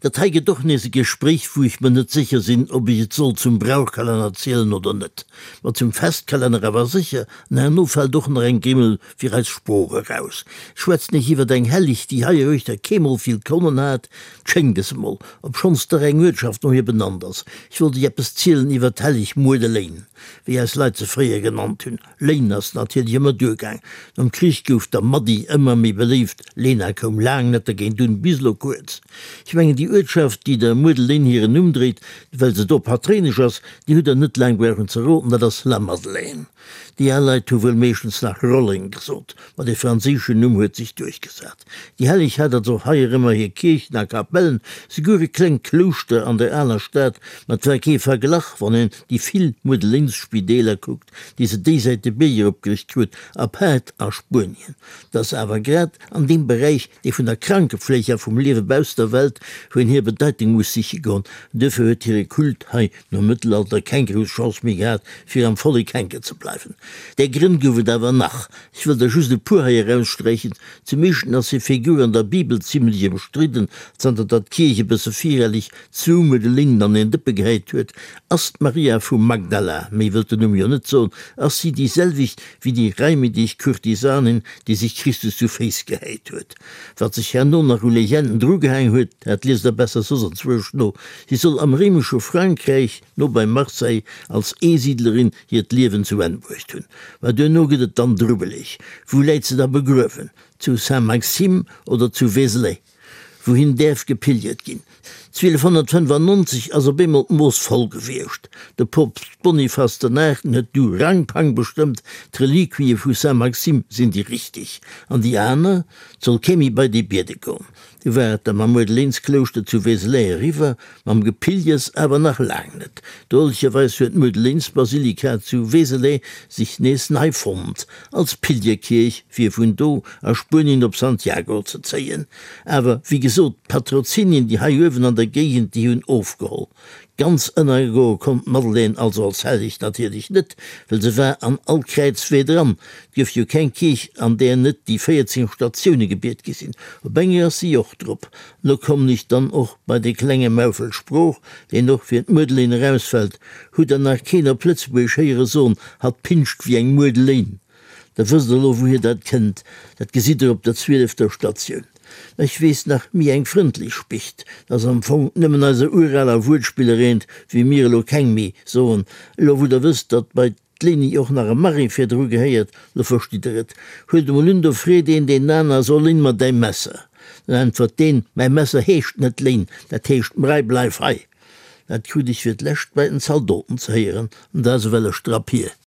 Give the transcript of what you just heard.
Dat hei gëtt och nees e Gespréich, wou ech mer net sécher sinn, ob ech et soll zum Brauchkalenner zielen oder net. Ma zum Festkalenner awer sécher, an herno fält och nach eng Grimmel fir eis Sprooch eraus. Ech schwätzen iech iwwert eng Helleg, déi heiruechter keemol vill Konnen hat, 't schéngt es emol, obschonns dach eng Uertschaft no hir benannt ass. Ech wollt iech eppes zielen iwwert d'Helleg Muedeléin, wéi eis Leit se fréier genannt hunn. Léin ass natierlech ëmmer duergaang. Nom Krich gouf der Maddi ëmmer méi beléift, Lena koum laang net dergéint un, bis elo kuerz. Ech mengen déi Uertschaft, déi der Muedeléin hiren Numm dréit, well se do Patréinesch ass, déi hutt der net laang brauchen ze roden, dat ass La Madeleine. Déi al Leit hu wuel meeschtens nach Rolleng gesot, ma dee franséischen Numm huet sech duerchgesat. Déi Helleg hat also och heierëmmer hir Kierchen a Kapellen, souguer e klengt Klouschter an der aler Stad, ma 't war kee Verglach, wann een déi vill Muedeléinsspideeler kuckt, déi se déisäit de Bierg eropgericht krut, apaart a Spuenien. 't ass awer grad an deem Beräich, dee vun der Krankefleeg a vum Liewe bausst der Welt, wou een hir Bedeitung muss siche goen. Duerfir huet hire Kult hei nom Mëttelalter keng grouss Chance méi gehat, fir am Vollek hänken ze bleiwen. Där Grënn gouf et awer nach. Ech wëll der just e puer hei eraussträichen. Zum éischten ass hir Figur an der Bibel zimlech ëmstridden, zanter datt d'Kierch e bësse virelleg zwou Muedeléinen an een Dëppe gehäit huet. Ass d'Maria vu Magdala, méi wëllt den Numm jo net soen, ass si déi selwecht wéi déi reimedeg Kurtisanin, déi sech Christus zu Féiss gehäit huet? Wat sech herno nach u Legenden drugehaang huet, dat liest der besser soss anzwousch no. Si soll am réimesche Frankräich, no bei Marseille, als Eesiedlerin hiert Liewen zu Enn bruecht hunn. Mä duerno gëtt et dann drubbeleg. Wou läit se da begruewen? Zu Saint-Maxime oder zu Vézelay? Wouhin däerf gepilgert ginn? 1295 ass op eemol d'Mooss voll gewiescht. De Poopst Boniface den Aachten huet du Rangpang bestëmmt, d'Reliquië vu Saint-Maxime sinn déi richteg, an déi aner? 't soll kee méi bei déi biede goen. Du war et da mam Muedeleensklouschter zu Vézelay eriwwer, mam Gepilgers awer nach laang net. Drolecherweis huet d'Muedeleensbasilika zu Vézelay sech nees nei fonnt, als Pilgerkierch, fir vun do a Spuenien op Santiago ze zéien. Awer wéi gesot, d'Patrozinien, déi hei uewen an der Géigend, déi hunn ofgeholl. Ganz ënnergoe konnt d'Madeleine also als Helleg natierlech net, well se war an all Kräizwee dran. 't gouf jo keng Kierch, an där net déi 14 Statioune gebiet gi sinn. Op enger ass si och drop. Lo kommen ech dann och bei de klenge Maufel Sprooch, deen och fir d'Muedelein erausfält. Hutt der nach keen op Lëtzebuergesch héiere soen, hatt pinscht wéi eng Muedelein? Da wësst der elo wouhier dat kënnt. Dat gesitt der op der zwielefter Statioun. Mä ech weess nach méi eng frëndlech Spicht. Dat ass am Fong nëmmen eiser uraler Wuertspiller eent, wéi mir elo keng méi soen. Elo wou der wësst, datt bei d'Léni och nach e Marie virdru gehéiert, lo verstitt der et. Huelt emol un, do freet een deen aner, So léin mer däi Messer. Dann äntwert deen, Mäi Messer heescht net Léin, dat heescht Mrei, bleif hei. Dat krut ech fir d'lescht bei den Zaldoten ze héieren, an dat ass ewell e Strapp hier.